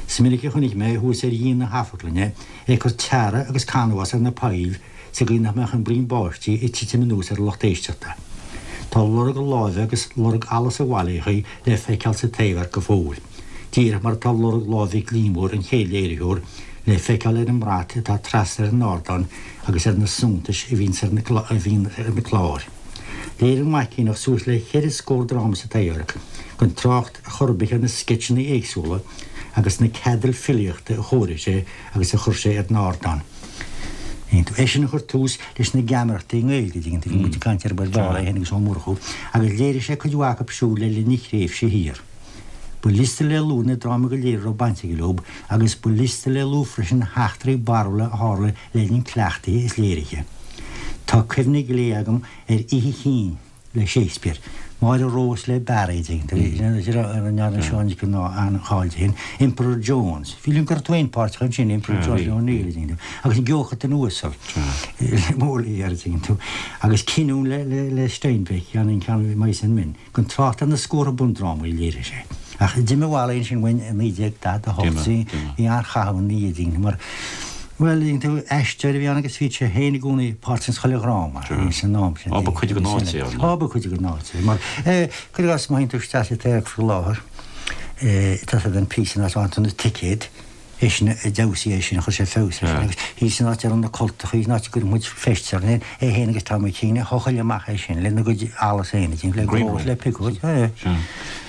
Is minic a chonaic mé thuas ar dhíon na hamharclainne é ag cur teara agus canbhás ar na poill sa gcaoi nach mbeadh an braon báistí ag titim anuas ar an lucht éisteachta. Tá lorg a láimhe agus lorg allas an Bhailíochaigh le feiceáil sa Taibhdhearc go fóill, díreach mar atá lorg lámh Mhic Liammóir, an chéad léiritheoir, le feiceáil ar an mbrat atá trasna ar an ardán agus ar na suntais a bhíonn ar na cláir. Léirigh an Maicíneach suas le cheithre scór dráma sa Taibhdhearc, gan trácht chor ar bith ar na sceitseanna éagsúla agus na ceadail filíochta a chóirigh sé agus a chuir sé ar an ardán. Eisean a chuir tús leis na geamaireachtaí i nGaeilge, dtuigeann tú, bhí muid ag caint ar Bhuel Dála é féin agus Ó Murchú, agus léirigh sé cuid mhaith acu siúd le linn a thréimhse thiar. Ba liosta le lua na drámaí go léir a raibh baint aige leo agus ba liosta le lua freisin na heachtraí barrúla a tharla le linn cleachtaithe is léirithe. Tá cuimhne ghlé agam ar Oíche Chinn. le Shakespeare. Máire Rós le Barry, ndearna Seán Nic an-cháil di féin, Emperor Jones. Bhí liom go raibh tú féin páirteach ansin, Emperor Jones le O'Neill, agus an Geochatain Uasal le Molière, tú, agus Cinniúint le Steinbeck, an ceann Mice and Men, gan trácht ar na scórtha bundrámaí a léirigh sé. Ach d'imigh Wally ansin uainn i 1948, bhí an-chaitheamh ina dhiaidh dínn mar, bhuel, dtuigeann tú, aisteoir a bhí ann agus bhí sé féin i gcónaí páirteach ins chuile dhráma san am sin. Á, ba chuid den áit é, ar ndóigh. Á, ba chuid den áit é. Mar, cuir i gcás, má théann tú isteach sa Taibhdhearc faoi láthair, tá siad an píosa in áit a bhfaigheann tú na ticéid, Eisean a d'fheabhsaigh é sin, chuir sé feabhas air sin agus thíos san áit a raibh na cultachaí, san áit a gcuireadh muid feistis orainn, é féin agus Tommy Keane a thochail amach é sin lena gcuid allas féin, le grós, le piocóid, é.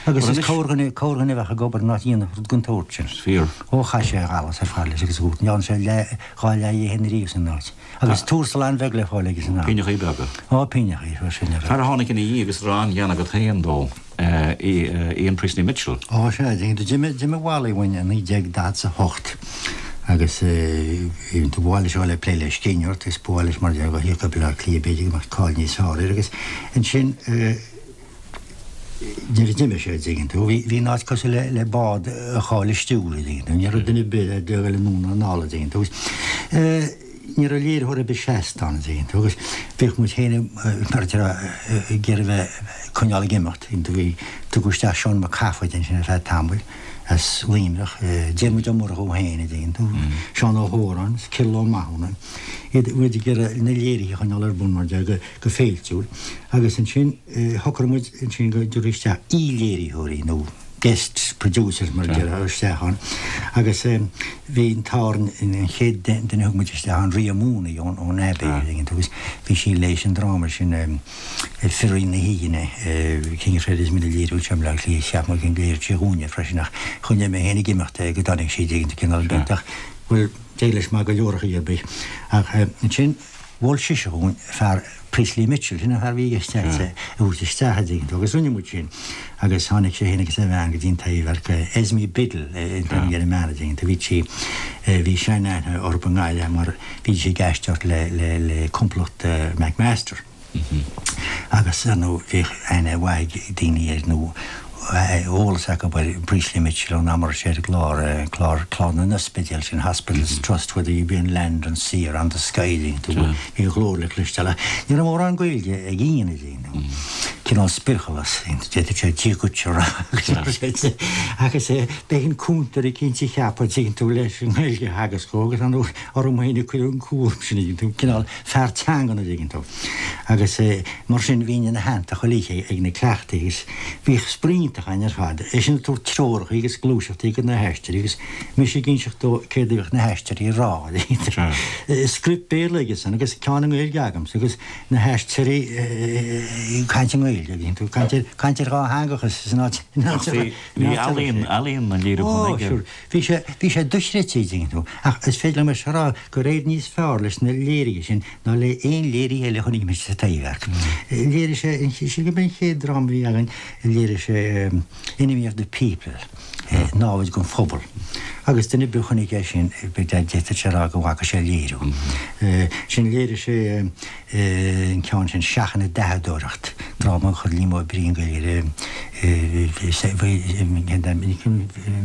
Agus is corrdhuine, corrdhuine a bheadh ag obair in áit a dhéanfadh rud den tsórt sin. Is fíor. Ó chaith sé a allas ar fad leis agus a dhúirt, ní dhearna sé leath, dhá leath dhe féin ariamh san áit. Agus tuarastal an-bheag le fáil aige san am. Pingneachaí beaga. Ó, pingneachaí, fuair sin ar Fear a tháinig ina dhiaidh agus a raibh an-ghean agat féin dó. Ian Priestley Mitchell. Ó sea, d'imigh Wally uainn i 1948 agus ba mhaith leis a dhul ag plé le scríbhneoireacht agus ba mhaith leis mar a déarfá a thíocht go Baile Átha Cliath b'fhéidir go mbeadh cáil níos fearr air agus ansin nuair a d'imigh sé, an dtuigeann tú, bhí an áit cosúil le bád a chaill a stiúir, an dtuigeann tú, ní raibh duine ar bith ag dul anonn ná anall, an dtuigeann tú. Ní raibh léiritheoir ar bith seasta ann, an dtuigeann tú, agus bhíodh muid féin mar a déarfá ag iarraidh bheith ag coinneáil ag imeacht. Bhí, tugadh isteach Seán Mac Cathmhaoil ansin ar feadh tamaill as Luimneach, Diarmuid Ó Murchú féin, an dtuigeann tú, Seán Ó hÓráin, Cyril Ó Mathúna, iad, muid ag iarraidh na léirithe a choinneáil ar bun mar a déarfá go féiltiúil. Agus ansin shocraigh muid ansin go dtabharfaí isteach aoi-léiritheoirí nó guest producers mar a déarfá isteach ann agus bhí an t-ádh orainn an chéad duine a thug muid isteach ann Ria Mooney ón ón Abbey an dtuigeann tú agus bhí sí leis an dráma sin Firí na hAoine cén chreid is mine léiriú anseo i mBleá Cliath cheap mé go léirigh sí dhúinne freisin ach choinnigh mé féin ag imeacht é go dtáinig sí an dtuigeann tú cineál beag ach bhuel d'éirigh leis maith go leor ar chaoi ar bith ach ansin Mhol sise dhúinn fear Priestley Mitchell, sin an fear a bhí i gceist agat a thabhairt isteach, a dtuigeann tú, agus rinne muid sin agus tháinig sé féin agus a bhean go dtí an Taibhdhearc, Esme Biddle an t-ainm ar an mbean, a dtuigeann tú, bhí sí, bhí sean-aithne orthu i nGaillimh mar bhí sí ag aisteoireacht le, le, le complacht McMaster. Agus, ar ndóigh, bhíodh aithne mhaith ag daoine air nó eolas acu ar Priestley Mitchell ón am a raibh sé ar an gclár, clár, clár na n-ospidéal sin, Hospitals Trust, whether you be on land, on sea or on the sky, bhí a ghlór le cloisteáil. Ach ní raibh mórán Gaeilge ag Ian, a dtuigeann tú. Cineál spirchealas, d'fhéadfadh sé Dia dhuit a rá agus b'é an cúntóir eicínt a ceapadh, a dtuigeann tú, leis an nGaeilge a theagasc dhó agus ar ndóigh orm féin a cuireadh an cúram sin, a dtuigeann tú, cineál fear teangan, a dtuigeann tú. Agus mar sin bhínn ina theannta chuile oíche ag na cleachtaí agus bhíodh spraoi iontach againn ar fad, eisean ag tabhairt treoracha agus gluaiseachtaí do na haisteoirí agus mise ag inseacht dó céard a bhíodh na haisteoirí a rá. Script Béarla aigesan agus ceann i nGaeilge agamsa agus na haisteoirí ag caint i nGaeilge, tú, caint ar, caint ar dhátheangachas san áit, in áit a raibh. Bhí ealaíon, ealaíon na léiriúchán aige. Ó, sure. Bhí sé, bhí sé dochreidte, a dtuigeann tú. Ach is féidir liom a rá gur éirigh níos fearr leis na léirithe sin ná le aon léirithe eile a chonaic mise sa Taibhdhearc. Léirigh sé, sin gurb é an chéad dráma a bhí againn, léirigh sé Enemy of the People, Námhaid den Phobal. Agus duine ar bith a chonaic é sin, d'fhéadfadh sé a rá go bhfaca sé léiriú. Sin léirigh sé an ceann sin, Seachain an Dathadóireacht, dráma a chuir Liam Ó Briain Gaeilge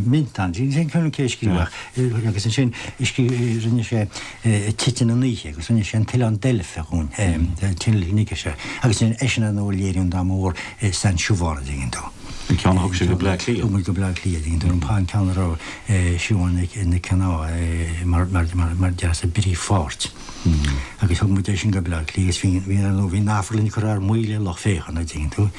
Mintán, sin cé a scríobh agus ansin rinne sé Titeann an Oíche agus rinne sé An tOileán Deilfe dhúinn, Tinish agus eisean ar ndóigh a léirigh an dráma mór Saint Siobhán, a dtuigeann tú. An ceann a thug sé go Bleá Cliath. Thug muid go Bleá Cliath, a dtuigeann tú, an ceann a raibh Siobhán Nic Cionnaith mar mar deas i bpríomhpháirt. Agus thug muid é sin go Bleá Cliath agus bhí bhí ar ndóigh bhí an amharclann curtha ar maoil le lucht féachana, a dtuigeann tú.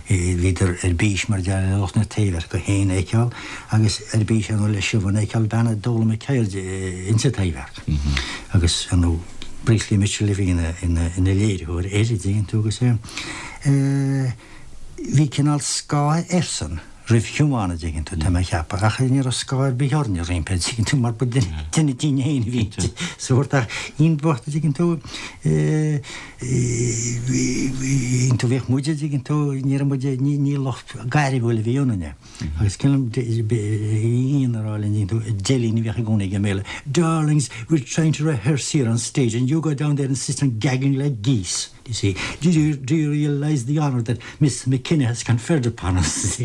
Bhíodar ar bís mar a déarfá le lucht na Taibhdheirce féin a fheiceáil agus ar bís ar ndóigh le Siobhán a fheiceáil, bean a d'fhoghlaim a ceird insa Taibhdhearc. Agus ar ndóigh Priestley Mitchell a bhí ina ina ina léiritheoir air, a dtuigeann tú, agus bhí cineál scáth airsean roimh Shiobhán, a dtuigeann tú, tá mé a cheapadh, ach ní raibh scáth ar bith orainne roimpi, a dtuigeann tú, mar ba duine dínn féin a bhí inti, sórt, ach Ian bocht, a dtuigeann tú, tú, bhíodh muid, a dtuigeann tú, ní raibh muid, ní lucht gairmiúil a bhí ionainne. Agus cuimhin liom Ian a rá linn, a dtuigeann tú, deilín a bhíodh i gcónaí aige i mBéarla, Darlings, we're trying to rehearse here on stage and you go down there and sit on gagging like geese. You see, do you, do you realise the honour that Miss McKenna has conferred upon us?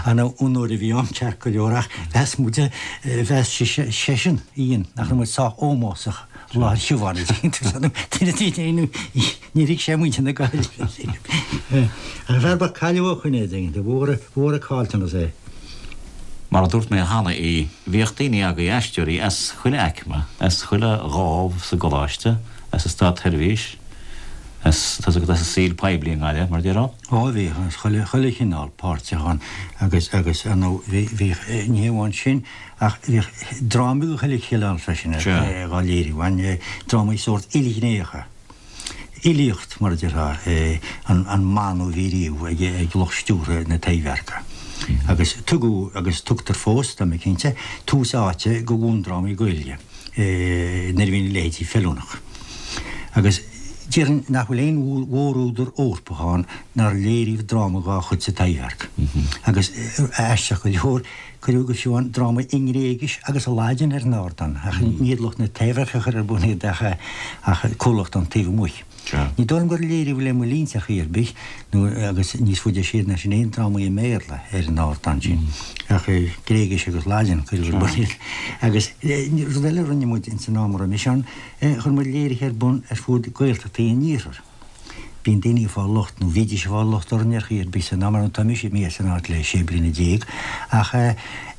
An onóir a bhí ann ceart go leor ach mheas muid, mheas seisean, Ian, nach raibh muid sách ómósach i láthair Shiobhán, níor thuig sé muintir na Gaillimhe. An fear ba cailleadh ó shoin é, mhór an caillteanas é. Mar a dúirt mé cheana í, bhíodh daoine agaibh, aisteoirí, as chuile aicme, as chuile dhámh sa gcoláiste, as an státsheirbhís, as, tá's agat, as an saol poiblí i nGaillimh, mar a déarfá. Ó, bhíodh, as chuile, chuile chineál páirteach ann agus, agus, ar ndóigh, bhí, bhíodh, ní hé amháin sin ach bhíodh drámaí de chuile chineál freisin ar, á léiriú ann, drámaí sórt ilghnéitheacha. Fhilíocht, mar a déarfá, an mana a bhí riamh ag lucht stiúrtha na Taibhdheirce. Agus tugadh, agus tugtar fós, tá mé cinnte, tús áite do bhundrámaí Gaeilge nuair a bhíonn a leithéidí feiliúnach. Agus déarfainn nach bhfuil aon mhórúdar Eorpach ann nár léiríodh dráma dá chuid sa Taibhdhearc. Agus aisteach go leor, Cuireadh go fiú amháin drámaí i nGréigis agus i Laidin ar an ardán, ach ní hiad lucht na Taibhdheirce a chuir ar bun iad ach comhlacht ón taobh amuigh. Ní dóigh liom gur léiríodh le mo linnse ar chaoi ar bith, nó agus níos faide siar ná sin aon drámaí i mBéarla ar an ardán sin, ach Gréigis agus Laidin a cuireadh ar bun iad. Agus rud eile a rinne muid ins an am a raibh mise ann, chuir muid léirithe ar bun ar fud Gaeltachtaí an Iarthair. Bíonn daoine ag fáil locht, nó bhídís ag fáil locht orainn ar chaoi ar bith san am, ar ndóigh tá mise imithe as an áit le 16 bliana, ach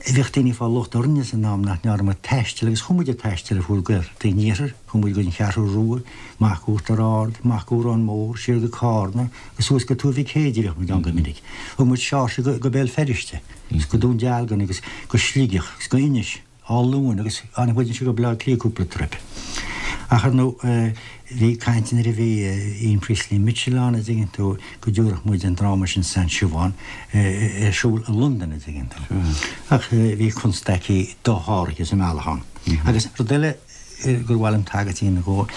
bhíodh daoine ag fáil locht orainne san am nach ndearna muid taisteal agus chuaigh muid ag taisteal ar fud Gaeltachtaí an Iarthair, chuaigh muid go dtí an Cheathrú Rua, amach go Uachtar Ard, amach go Órán Mór, siar go Cárna, agus suas go Tuar Mhic Éadaigh, bhíodh muid ann go minic. Thug muid Seoirse go Béal Feirste, agus go Dún Dealgan agus go Sligeach agus go Inis. Áth Luain agus tháinig muid anseo go Baile Átha Cliath cúpla trip. Ach ar ndóigh bhí caint nuair a bhí Ian Priestley Mitchell ann a' dtuigeann tú go dtabharfadh muid an dráma sin Saint Siobhán ar siúl i Londain a' dtuigeann tú. Ach bhí constaicí dosháraithe sa mbealach ann. Agus rud eile gur mhaith liom tagairt a dhéanamh dhó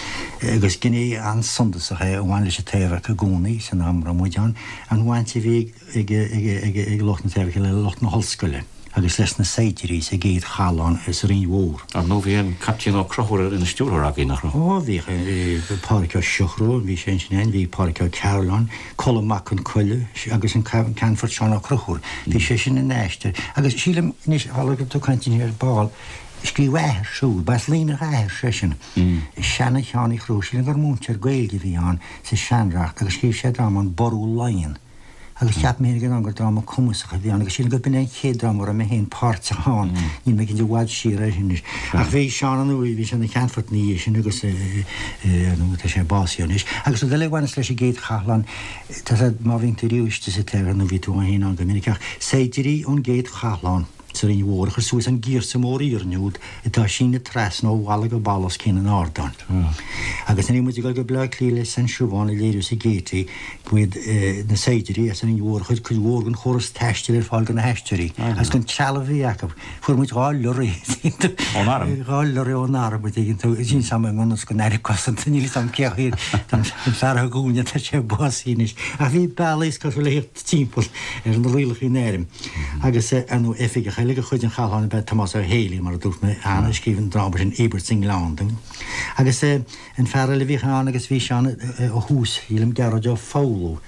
agus gné an-suntasach é a bhain leis an Taibhdhearc i gcónaí san am a raibh muid ann, an bhaint a bhí ag ag lucht na Taibhdheirce le lucht na hollscoile agus leis na saighdiúirí sa gcéad chathlán sa Rinn Mhór. Ar ndóigh bhí an Caiptín Ó Conchúir ina stiúrthóir againn, nach raibh? Ó bhíodh, Pádraic Ó Siochrú, bhí sé ansin ann, bhí Pádraic Ó Cearúil, Colm Mac Con Coille agus an Ceannfort Seán Ó Conchúir, bhí sé sin ina aisteoir. Agus sílim anois, tharla go raibh tú ag caint ar ball, scríobh a athair siúd, ba as Luimneach a athair seisean, seana-Sheán Uí Chonchúir, sílim gur múinteoir Gaeilge a bhí ann sa Seanreacht agus scríobh sé dráma An Ború Laighean. Agus cheap mé féin ag an am gur dráma cumasach a bhí ann agus sílim gurb in é an chéad dráma a raibh mé féin páirteach ann, níl mé cinnte i bhfad siar é sin anois. Ach bhí Seán ar ndóigh, bhí sé ina cheannfort ina dhiaidh sin agus ar ndóigh tá sé básaithe anois. Agus rud eile a bhaineas leis an gcéad chathlán, tá sé, má bhíonn tú riamh istigh sa Taibhdhearc nó bhí tú féin ann go minic ach saighdiúirí ón gcéad chathlán, sa Rinn Mhór a chuir suas an giorsa mór iarainn úd atá ag síneadh trasna ó bhalla go balla os cionn an ardáin. Agus nuair a bhí muid ag dul go Baile Átha Cliath le Saint Siobhán a léiriú sa Gaiety, ba iad na saighdiúirí as an Rinn Mhór a chuir cuid mhór den chóras taistil ar fáil do na haisteoirí agus den trealamh a bhí acu. Fuair muid 2 lorry Ón arm? 2 lorry ón arm, a dtuigeann tú, sin sam i ngan fhios don Aire Cosanta, níl 'fhios a'm cé hiad an fear a thug uainn tá sé básaithe anois. Ach bhí bealaí is cosúil le thíocht timpeall ar na rialacha in airm. Agus ar ndóigh oifigeach eile de chuid an chathláin ab ea Tomás Ó Héalaí, mar a dúirt mé cheana, a scríobh an dráma sin Íobairt sa nGleann dúinn. Agus an fear eile a bhíodh ann agus bhí sé ann ó thús, sílim, Gearóid Ó Foghlú.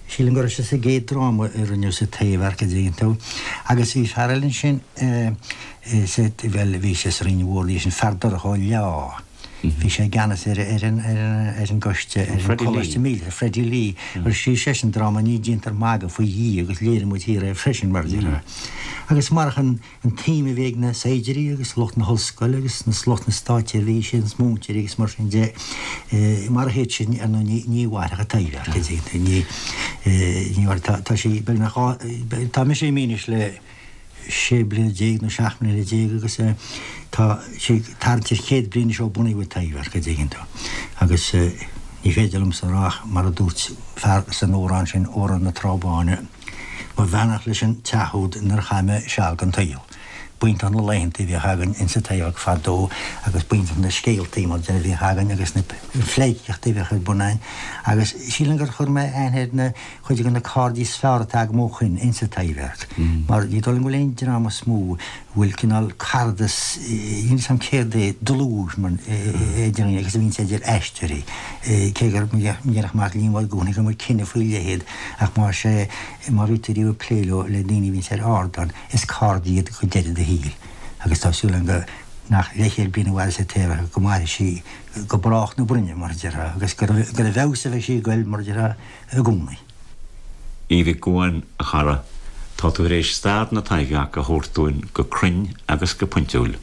Sílim go raibh sé sa gcéad dráma a rinneadh sa Taibhdhearc, a dtuigeann tú. Agus bhí fear eile ansin, bhuel, bhí sé sa Rinn Mhór, bhí sin Feardorcha Ó Leá. Bhí sé i gceannas ar ar an gcoiste, ar an Choláiste Míleata, Freddie Lee, agus scríobh seisean dráma Ní Déantar Magadh faoi Dhia agus léirigh muid thiar é freisin, mar a déarfá. Agus marach an tsuim a bhí ag na saighdiúirí agus lucht na hollscoile agus lucht na státseirbhíse agus múinteoirí agus mar sin de, marach iad sin, ar ndóigh, ní mhairfeadh an Taibhdhearc, ní, ní mhairfeadh, tá sí beagnach dhá, tá mise imithe anois le. 16 bliana nó 17 mbliana agus tá sí ag tarraingt ar chéad bliain anois ó bunaíodh an Taibhdhearc, a dtuigeann tú. Agus ní féidir liomsa a rá ach mar a dúirt fear san amhrán sin, Amhrán na Trá Báine, Mo bheannacht leis an teach úd inar chaith mé seal den tsaol. B'iontach na laethanta a bhíodh againn insa Taibhdhearc fadó agus b'iontach na scéaltaí mar a bhíodh againn agus na pleidhcíochtaí a bhíodh ar bun againn agus sílim gur chuir mé aithne ar na cuid de na cairde is fearr atá agam ó shoin insa Taibhdhearc, mar ní dóigh liom go bhfuil aon dream is mó a bhfuil cineál caradas, níl 'fhios a'm céard é, dlúth mar idir dhaoine agus a bhíonns idir aisteoirí, cé gur ndéarfadh Mac Liammóir i gcónaí go mbeadh cine faoi leith iad, ach más é, má bhí tú riamh ag plé leo, le daoine a bhíonns ar ardán, is cairde iad go deireadh do shaoil. Agus tá súil agam go nach leathchéad bliain a mhairfeas an Taibhdhearc, go mairfidh sí go brách na broinne, mar a déarfá, agus gur i bhfeabhas a bheidh sí ag goil, mar a déarfá. i gcónaí. Aodh Mhic Gabhann, a chara. Tá tú tar éis stair na Taibhdheirce a thabhairt dúinn go cruinn agus go pointiúil.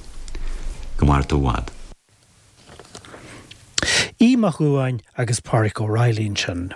Go maire tú i bhfad. Aodh Mac Dhubháin agus Pádraic Ó Raghallaigh ansin.